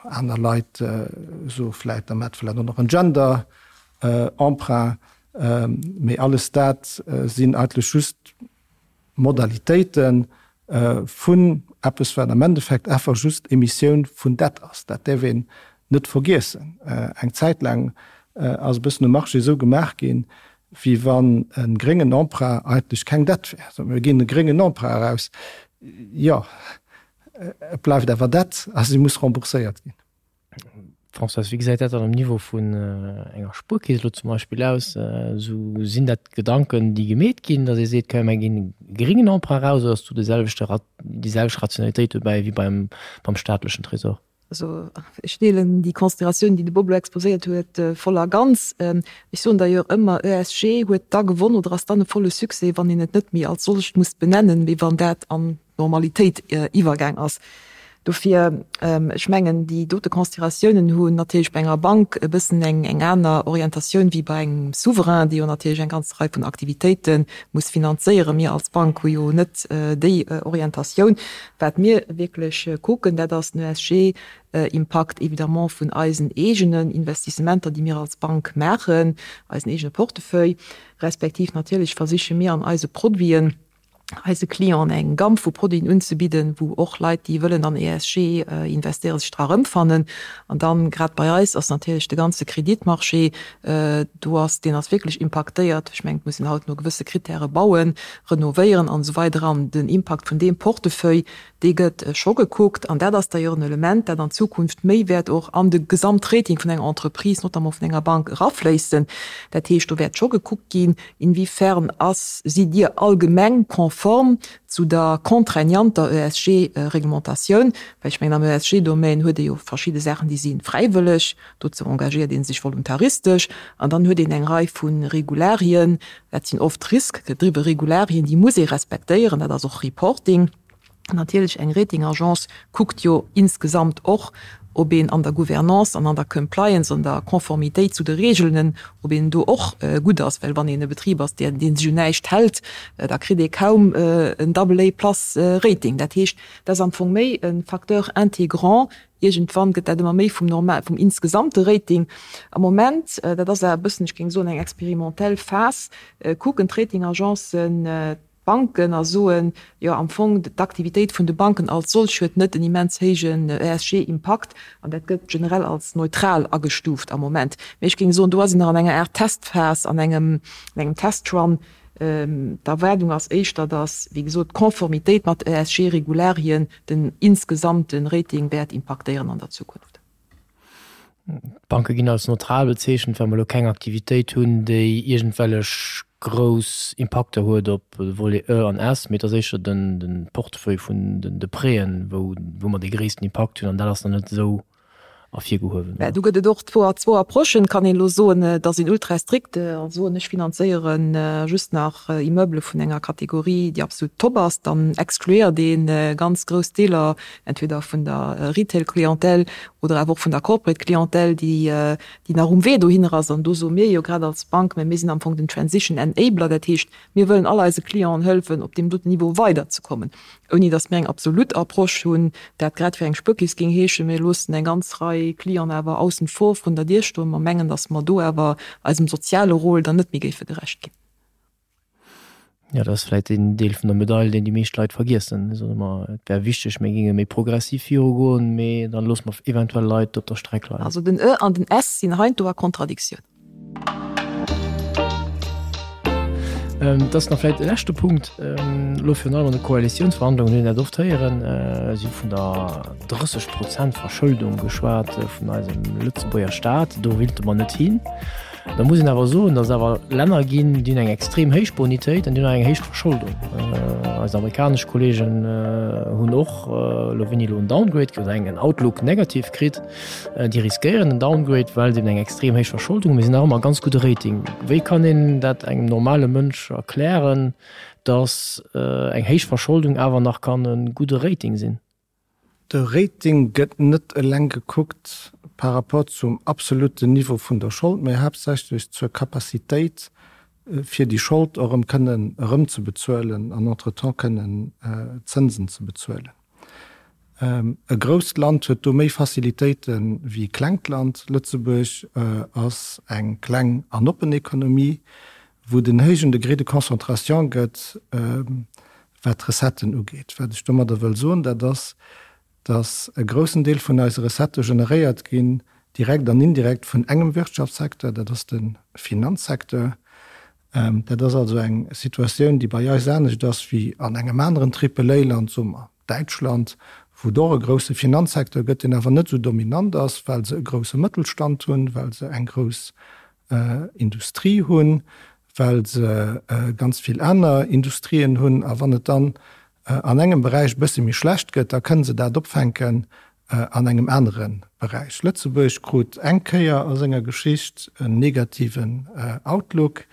Aner Leit soe vläit, da maacht vläicht och nach en Gender Emprunt. Mee alles dat sinn eigentlech just Modalitéite vun eppes, wat am Endeffekt einfach just Emissioun vun Dett ass. Dat däerf een net vergiessen. Eng Zäit laang ass e bëssen um Marché esou gemaach ginn, wéi wann e gréngen Emprunt eigentlech keng Dett wär. Soe mir ginn e gréngen Emprunt eraus. Jo, Et bleift awer Dett a si muss rembourséiert ginn. Françoise, wéi gesäit dat dann um Niveau vun enger Spuerkeess elo zum Beispill aus? Esou, sinn dat Gedanken, déi gemeet ginn, datt ee seet, komm mir ginn e geringen Emprunt eraus, oder ass do de selwechte, déi selwecht Rationalitéit dobäi wéi beim, beim staatlechen Tresor? Also ech deelen déi Consideratioun, déi de Bob elo exposéiert huet, voll a ganz. Ech soen d'ailleurs ëmmer, ESG huet da gewonn oder ass dann e volle Succès, wann een et net méi als solcht muss benennen, mee wann dat an d'Normalitéit iwwergaang ass. Dofir, ech mengen, déi dote Consideratiounen hunn natierlech bei enger Bank e bëssen eng eng aner Orientatioun wéi bei engem Souverain, dee jo natierlech eng ganz Rei vun Aktivitéite muss finanzéieren. Mir als Bank hu jo net déi Orientatioun. Wat mir wierklech kucken, dat ass den ESG-Impakt évidemment vun eisen eegenen Investissementer, déi mir als Bank maachen, eisen eegene Portefeuille, respektiv natierlech versiche mir an eise Produiten eise Clienten eng Gamme vu Produiten unzebidden, wou och Leit, déi wëllen an ESG investéieren, sech dra erëmfannen. An dann, grad bei eis ass natierlech de ganze Kreditmarché, do ass, deen ass wierklech impaktéiert. Ech mengen, et muss een haut no gewësse Krittäre bauen, renovéieren an esou weider an den Impakt vun deem Portefeuille, dee gëtt scho gekuckt an dat ass d'ailleurs en Element, dat an Zukunft méi wäert och an de Gesamtrating vun enger Entreprise, notamment vun enger Bank, erafléissen. Dat heescht, do wäert scho gekuckt ginn, inwiefern ass, sidd Dir allgemeng konform zu der contraignanter ESG-Reglementatioun, well ech mengen, am ESG-Domaine huet ee jo verschidde Saachen, déi si fräiwëlleg, Dozou engagéiert ee sech voluntaristesch an dann huet een eng Rei vu Regularien, dat sinn oft risk-gedriwwe Regularien, déi muss ee respektéieren, dat ass och Reporting. Natierlech, eng Rating-Agence kuckt jo insgesamt och. ob een an der Gouvernance an an der Compliance, an der Conformitéit zu de Regeln, ob een do och gutt ass. Well wann een e Betrib ass, dee sech un näischt hält, da kritt ee kaum en Double A plus Rating. Dat heescht, dat ass am Fong méi e Facteur intégrant. Iergendwann gëtt dat ëmmer méi vum normal, vum insgesamte Rating. Am Moment, dat ass awer e bëssen, ech géing soen, eng experimentell Phas, kucken d'Ratingagencen d'Banken a soen, jo am Fong d'Aktivitéit vun de Banken als solch huet net en immens héijen ESG-Impakt an dat gëtt generell als neutral agestuuft am Moment. Mee ech géing soen, do ass een nach an enger Aart Testphas, an engem Testrun. D'Erwaardung ass éischter, datt, wéi gesot, d'Konformitéit mat ESG-Regularien den insgesamte Rating wäert impaktéieren an der Zukunft. D'Banke ginn als neutral bezeechent, well mer elo keng Aktivitéit hunn, déi iergendwellech grouss Impakter huet op de Volet E an S, mee et ass éischter de Portefeuille vun de Prêten, wou mer dee gréissten Impakt hunn an dat ass nach net esou ervirgehuewen. Mä do gëtt et och zwou Approchen. Et kann een elo soen, et ass een ultra strikt a soen, ech finanzéiere just nach Immeubele vun enger Kategorie, déi absolut top ass. Dann excluéiert ee ganz grouss Deeler entweder vun der Retail-Clientèle oder awer och vun der Corporate-Clientèle, déi nach um Wee dohinner ass. An do soe mir jo grad als Bank, mä mir sinn am Fong den Transition Enabler, dat heescht, mir wëllen all eise Clienten hëllefen, op deem doten Niveau weiderzekommen, ouni datt mir eng absolut Approche hunn, dat grad fir eng Spuerkeess géing heeschen, mir loossen eng ganz Rei Clienten awer aussen vor vrun der Dier stoen, mer mengen, datt mer do awer eisem soziale Rôle dann net méi géife gerecht ginn. Jo, dat ass vläicht deen Deel vun der Medail, deen déi meescht Leit vergiessen. Mir soen ëmmer, et wär wichteg, mir géinge méi progressiv virugoen, mee dann loosse mer eventuell Leit op der Streck leien. Also den E an den S sinn heiansdo a Kontradiktioun. Et ass nach vläicht e leschte Punkt, elo virun allem an de Koalitiounsverhandlungen hunn een dat oft héieren, si hu vun der 30 Prozent Verschëldung geschwat vun eisem Lëtzebuerger Staat. Do wéilte mer net hin. Da muss een awer soen, datt et awer Länner ginn, déi hunn eng extrem héich Bonitéit an déi hunn och eng héich Verscholdung. Eis amerikanesch Kolleegen hunn och elo wéini elo en Downgrade oder en Outlook negativ kritt. Déi riskéieren en Downgrade, well se eben eng extrem héich Verscholdung hunn. Mee se hunn nach ëmmer e ganz gudde Rating. Wéi kann een dat engem normale Mënsch erklären, datt eng héich Verscholdung awer nach kann e gudde Rating sinn? De Rating gëtt net eleng gekuckt par rapport zum absolutten Niveau vun der Schold, mä haaptsächlech zur Capacitéit, fir déi Schold och erëm kënnen erëmzebezuelen an entretemps kënnen Zënsen ze bezuelen. E grousst Land huet do méi Facilitéite wéi e klengt Land. Lëtzebuerg ass eng kleng an oppen Ekonomie, wou et en héijen Degré de concentration gëtt, wat d'Recetten ugeet. Wat ech domadder wëll soen, dat ass, dass e groussen Deel vun eise Recettë generéiert ginn, direkt an indirekt, vun engem Wirtschaftssecteur, dat ass de Finanzsecteur. Dat ass also eng Situatioun, déi bei eis anescht ass wéi an engem aneren Triple-A-Land, soe mer Däitschland, wou et och e grousse Finanzsecteur gëtt, deen awer net esou dominant ass, well se e grousse Mëttelstand hunn, well se eng grouss Industrie hunn, well se ganz vill aner Industrien hunn. A wann et dann an engem Beräich e bësse méi schlecht gëtt, da kënne se dat opfänken an engem anere Beräich. Lëtzebuerg krut eng Kéier a senger Geschicht en negativen Outlook.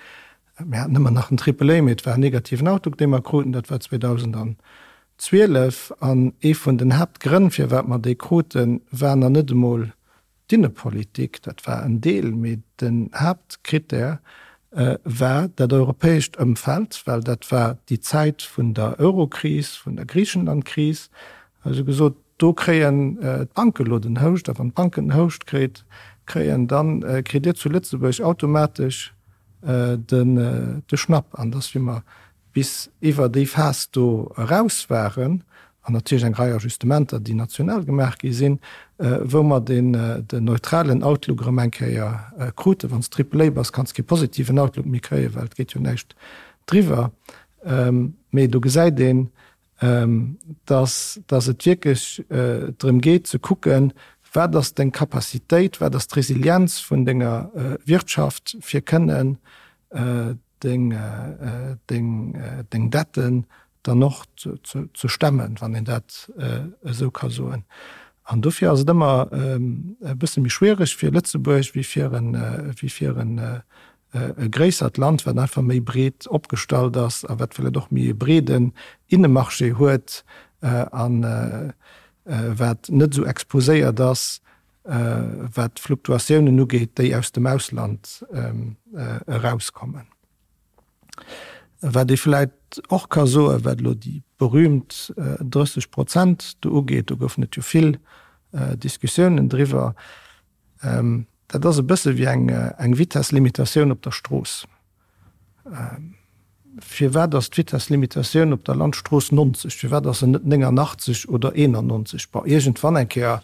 Mir haten ëmmer nach en Triple A, mee et war en negativen Outlook, dee mer kruten. Dat war 2012. An ee vun den Haaptgrënn, firwat mer dee kruten, war nach net emol D'Innepolitik, dat war en Deel, mee den Haaptkrittär war dat europäescht Ëmfeld, well dat war déi Zäit vun der Eurokris, vun der Griichenlandkris. Also gesot, do kréien d'Banke lo den Houscht, a wann d'Banken den Houscht kritt, kréien, da kritt Dir zu Lëtzebuerg automatesch de Schnapp. An dass, wéi mer bis iwwer déi Phas do eraus waren, an natierlech eng Rei Ajustementer, déi national gemaach gi sinn, wou mer den neutralen Outlook erëm eng Kéier kruten. Wann s de Triple A bass, kanns de kee positiven Outlook méi kréien, well et geet jo näischt driwwer. Mee do gesäit een, dass dass et wierklech drëm geet ze kucken, wat ass deng Capacitéit, wat ass d'Resilienz vun denger Wirtschaft, fir kënnen deng, deng, deng Detten dann och ze stemmen, wann een dat esou ka soen. An dofir ass et ëmmer e bësse méi schwiereg fir Lëtzebuerg wéi fir en, wéi fir en e gréissert Land, wat einfach méi breet opgestallt ass a wat vläicht och méi e breeden Innemarché huet a wat net esou exposéiert ass. wat d'Fluktuatiounen ugeet, déi aus dem Ausland erauskommen. Wat ee vläicht och ka soen, wat elo déi berühmt 30 Prozent do ugeet, do goufen et jo vill Diskussiounen driwwer, dat ass e bësse wéi eng Vitesslimitatioun op der Strooss. Firwat ass d'Vitesslimitatioun op der Landstrooss 90? Firwat ass se net 89 oder 91? Bon, iergendwann eng Kéier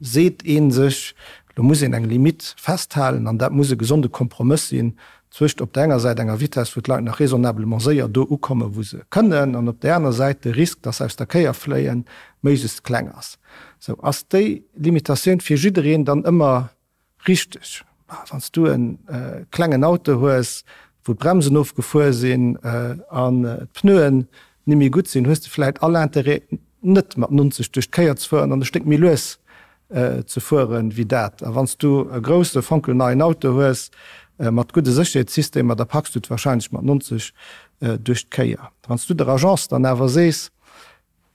seet ee sech, lo muss een eng Limitt festhalen an dat muss e gesonde Kompromëss sinn zwëscht op der enger Säit enger Vitess, wou d'Leit nach raisonnablement séier do ukommen, wou se kënnen, an op där aner Säit de Risk, dass se aus der Kéier fléien, méiglechst kleng ass. Sou, ass déi Limitatioun fir jiddereen dann ëmmer Richteg. Wann s du e klengen Auto hues, wou d'Bremsen ofgefuer sinn an d'Pneuen ni méi gutt sinn, hues de vläit all Interêt net mat 90 duerch d'Kéier ze fueren an e Stéck méi lues ze fueren wéi dat. A wann s du e grousse fonkelneien Auto hues mat gudde Sécherheetssystemer, da packs du et warscheinlech mat 90 duerch d'Kéier. Wann s du der Agence dann awer sees,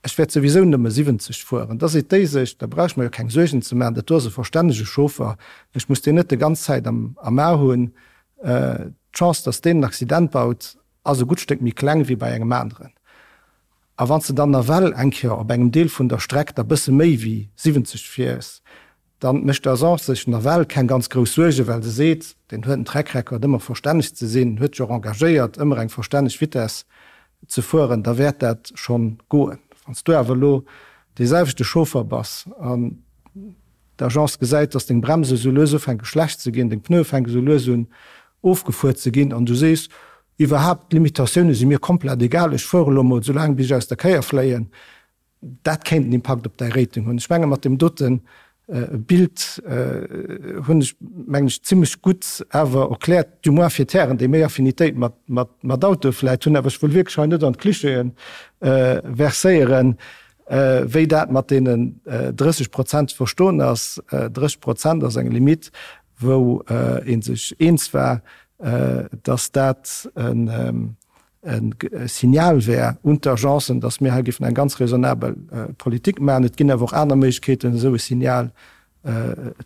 Ech wäert souwisou nëmme 70 fueren. Da seet déi sech, da brauch ech mer jo keng Suergen ze maachen, dat do ass e verstännege Chauffer, ech muss deen net de ganz Zäit am am A hunn. D'Chance, datt deen en Accident baut, ass e gutt Stéck méi kleng wéi bei engem aneren. A wann s de dann nawell eng Kéier op engem Deel vun der Streck da bësse méi wéi 70 fiers, Dann mécht d'Agence sech nawell keng ganz grouss Suergen, well se seet, deen huet en Track Record ëmmer verstänneg ze sinn, huet sech och engagéiert ëmmer eng verstänneg Vitesse ze fueren, da wäert dat schonn goen. Wann s du awer elo dee selwechte Chauffer bass an d'Agence gesäit, dass deng Bremse sou lues ufänke schlecht ze ginn, deng Pneue fänke sou lues un ofgefuer ze ginn an du sees, iwwerhaapt d'Limitatioune si mir komplett egal, ech fuere elo mol soulaang bis ech aus der Kéier fléien, Dat kéint en Impakt op däi Rating hunn. Ech menge mat deem dote Bild hunn ech, mengen ech, zimlech gutt awer erkläert, du moins fir d'Hären, déi méi Affinitéit mat Autoe vläit hunn, awer ech wëll wierklech hei net an d'Clichéë verséieren, wéi dat mat deenen 30 Prozent ze verstoen ass. 30 Prozent ass eng Limitt, wou ee sech eens war, dass dat en e Signal wär un d'Agencen, dass mir hei géifen eng ganz raisonnabel Politik maachen. Et ginn awer och aner Méiglechkeeten, esou e Signal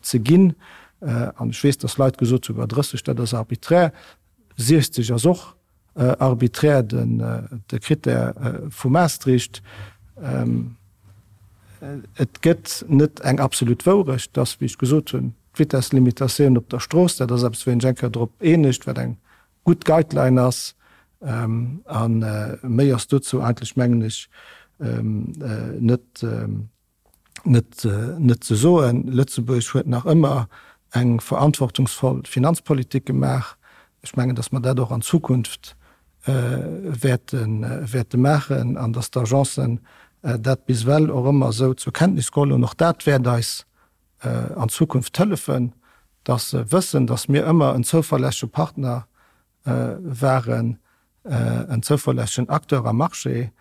ze ginn. An ech weess, dass Leit gesot hunn, 30, dat ass arbiträr. 60 ass och arbiträr, de Critère vu Maastricht. Et gëtt net eng absolut Wourecht, dass, wéi ech gesot hunn, d'Vitesslimitatioun op der Strooss, dat ass eppes, wou een sech eng Kéier drop eenegt, wat eng gutt Guideline ass. A méi ass dozou eigentlech, mengen ech, net, net, net ze soen. Lëtzebuerg huet nach ëmmer eng verantwortungsvoll Finanzpolitik gemaach. Ech mengen, datt mer dat och an Zukunft wäerte, wäerte maachen an datt d'Agencen dat bis ewell och ëmmer esou zur Kenntnis geholl hunn. Och dat wäert eis an Zukunft hëllefen, dass se wëssen, dass mir ëmmer en zouverlässege Partner waren, en zouverlässegen Acteur am Marché.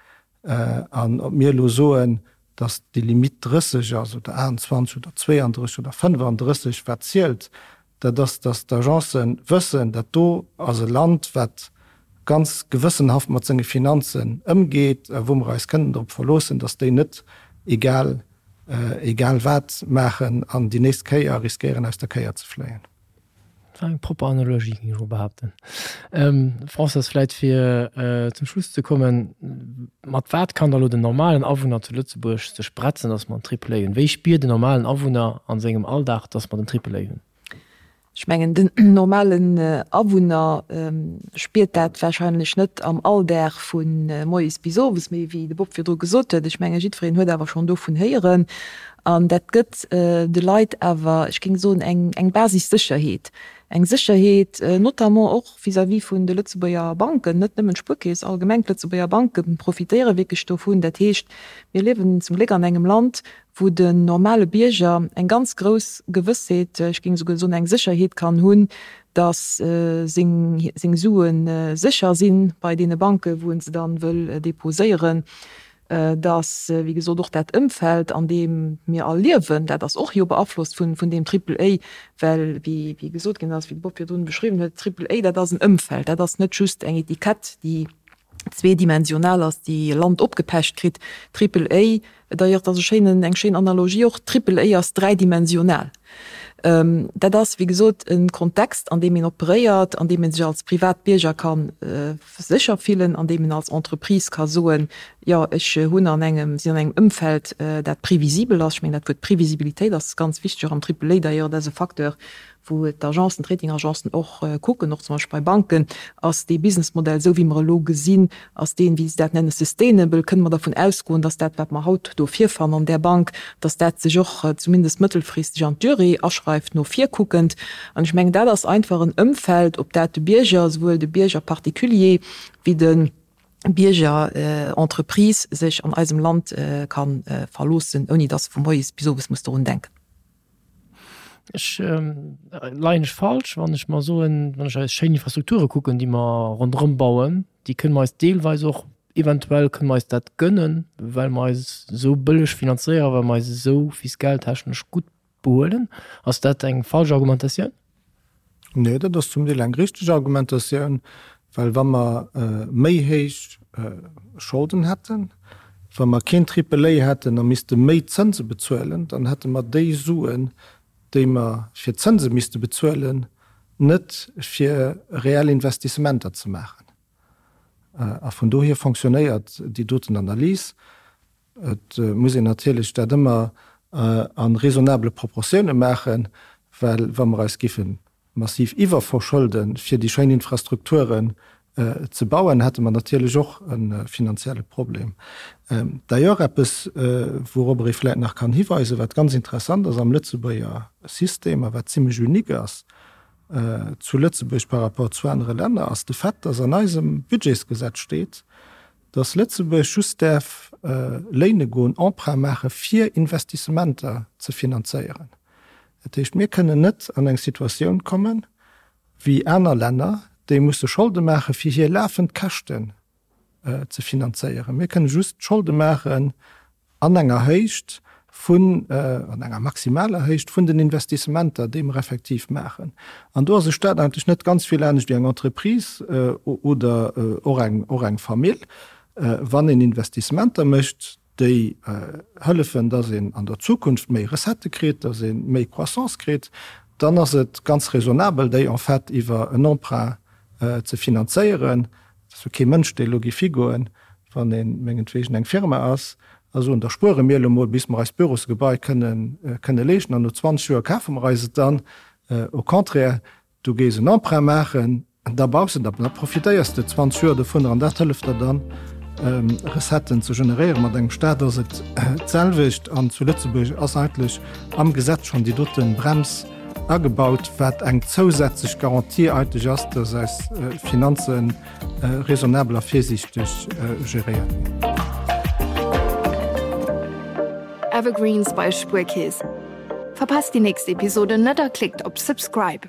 An ob mir elo soen, dass déi Limitt 30 ass oder 28 oder 32 oder 35, wat zielt, dat ass, dass d'Agencen wëssen, dat do ass e Land, wat ganz gewëssenhaft mat senge Finanzen ëmgeet a wou mer eis kënnen drop verloossen, dass déi net egal egal wat maachen an déi nächst Kéier riskéieren aus der Kéier ze fléien. Dat war eng propper Analogie, géing ech mol behaapten. Françoise, vläit fir zum Schluss ze kommen, Mat wat kann da lo den normalen Awunner zu Lëtzebuerg sech bretzen, datt mer en Triple A hunn? Wéi spiert den normalen Awunner a sengem Alldag, datt mer den Triple A hunn? Ech mengen, den normalen Awunner spiert dat wahrscheinlech net am Alldag vu moies bis owes, mee wéi de Bob virdru gesot huet, ech menge jiddwereen huet awer schonn dovun héieren. An dat gëtt de Leit awer, ech géing soen, eng Basissécherheet, eng Sécherheet notamment och vis-à-vis vun de Lëtzebuerger Banken, net nëmmen d'Spuerkeess, allgemeng d'Lëtzebuerger Banke profitéiere wierklech dovun. Dat heescht, mir liewen zum Gléck an engem Land, wou den normale Bierger eng ganz grouss Gewëssheet, ech géing esouguer soen eng Sécherheet kann hunn, datt seng Sue sécher si bei deene Banken, wou e se dann wëll deposéieren, datt, wéi gesot, och dat Ëmfeld, an deem mir all liewen, dat ass och jo beaflosst vun deem Triple A, well, wéi gesot ginn ass, wéi de Bob virdrun beschriwwen huet, Triple A, dat ass en Ëmfeld, dat ass net just eng Etikett, déi. Zweedimensional ass, déi e Land opgepecht kritt. Triple A, d'ailleurs, dat ass e schéinen, eng schéin Analogie och, Triple A ass dräidimensional. Dat ass, wéi gesot, e Kontext, an deem een operéiert, an deem ee sech als Privatbierger ka sécher fillen, an deem een als Entreprise ka soen, jo, ech hunn an engem, sinn an engem Ëmfeld, dat previsibel ass. Ech mengen, dat Wuert Previsibilitéit ass ganz wichteg och am Triple A d'ailleurs, dat ass e Facteur, wou d'Agencen, d'Ratingagencen och kucken, och zum Beispill bei Banken, ass dee Businessmodell, esou wéi mer e lo gesinn, ass deen, wéi se dat nennen, sustainable? Kënne mer dervun ausgoen, dass dat, wat mer haut do virfannen an där Bank, dass dat sech och zumindest mëttelfristeg an d'Durée aschreift, no vir kuckend? An ech mengen, dat ass einfach en Ëmfeld, op dat de Bierger, esouwuel de Bierger particulier wéi de Bierger Entreprise, sech an eisem Land ka verloossen, ouni dass e vu moies bis owes muss dorun denken. Ech leien ech falsch, wann ech mer soen, wann ech eis schéin Infrastrukture kucken, déi mer ronderëm bauen, déi kënne mer eis deelweis och, eventuell kënne mer eis dat gënnen, well mer eis esou bëlleg finanzéieren, well mer eis esou fiskaltechnesch gutt behuelen. Ass dat eng falsch Argumentatioun? Nee, dat ass zum Deel eng richteg Argumentatioun, well wa mer méi héich Scholden hätten, wa mer keen Triple A hätten a misste méi Zënse bezuelen, dann hätte mer déi Suen, déi mer fir d'Zënse misste bezuelen, net fir reell Investissementer ze maachen. A vun dohier fonctionnéiert déi doten Analys. Et muss een natierlech dat ëmmer a raisonnabele Proportioune maachen, well wa mer eis géife massiv iwwerverschëlde fir déi schéin Infrastrukturen ze bauen, hätte mer natierlech och e finanzielle Problem. D'ailleurs eppes, wourobber ee vläicht nach kann hiweisen, wat ganz interessant ass am Lëtzebuerger System a wat zimlech unique ass zu Lëtzebuerg par rapport zu anere Länner, ass de Fait, dass an eisem Budgetsgesetz steet, dass Lëtzebuerg just däerf léine goen, Emprunt maache fir Investissementer ze finanzéieren. Dat heescht, mir kënnen net an eng Situatioun kommen, wéi aner Länner, déi musse Scholde maache fir hir lafend Käschten ze finanzéieren. Mir kënne just Scholde maachen An enger Héicht vun, an enger maximaler Héicht vun den Investissementer, déi mer effektiv maachen. An do ass e Stat eigentlech net ganz vill anescht wéi eng Entreprise oder och eng, och eng Famill. Wann een Investissementer mécht, déi hëllefen, dass een an der Zukunft méi Recettë kritt, dass ee méi Croissance kritt, dann ass et ganz raisonnabel, déi en fait iwwer en Emprunt ze finanzéieren. Et ass jo kee Mënsch, dee elo géif higoen, wann ee mengetwegen eng Firma ass, a soen, da spuere mir elo mol, bis mer eist Bürosgebai kënnen, kënne leeschten, an no 20 Joer kafe mer eis et dann. Au contraire, du gees en Emprunt maachen, da baus de, da profitéiers de 20 Joer dovunner an dat hëlleft der dann, Recetten ze generéieren. Mat engem Staat ass et d'selwecht an zu Lëtzebuerg ass eigentlech am Gesetz schonn déi dote Brems agebaut, wat eng zousätzlech Garantie eigentlech ass, dass eis Finanze raisonnabel a virsiichteg geréiert ginn. Evergreens bei Spuerkeess. Verpasst déi nächst Episode net a klickt op Subscribe.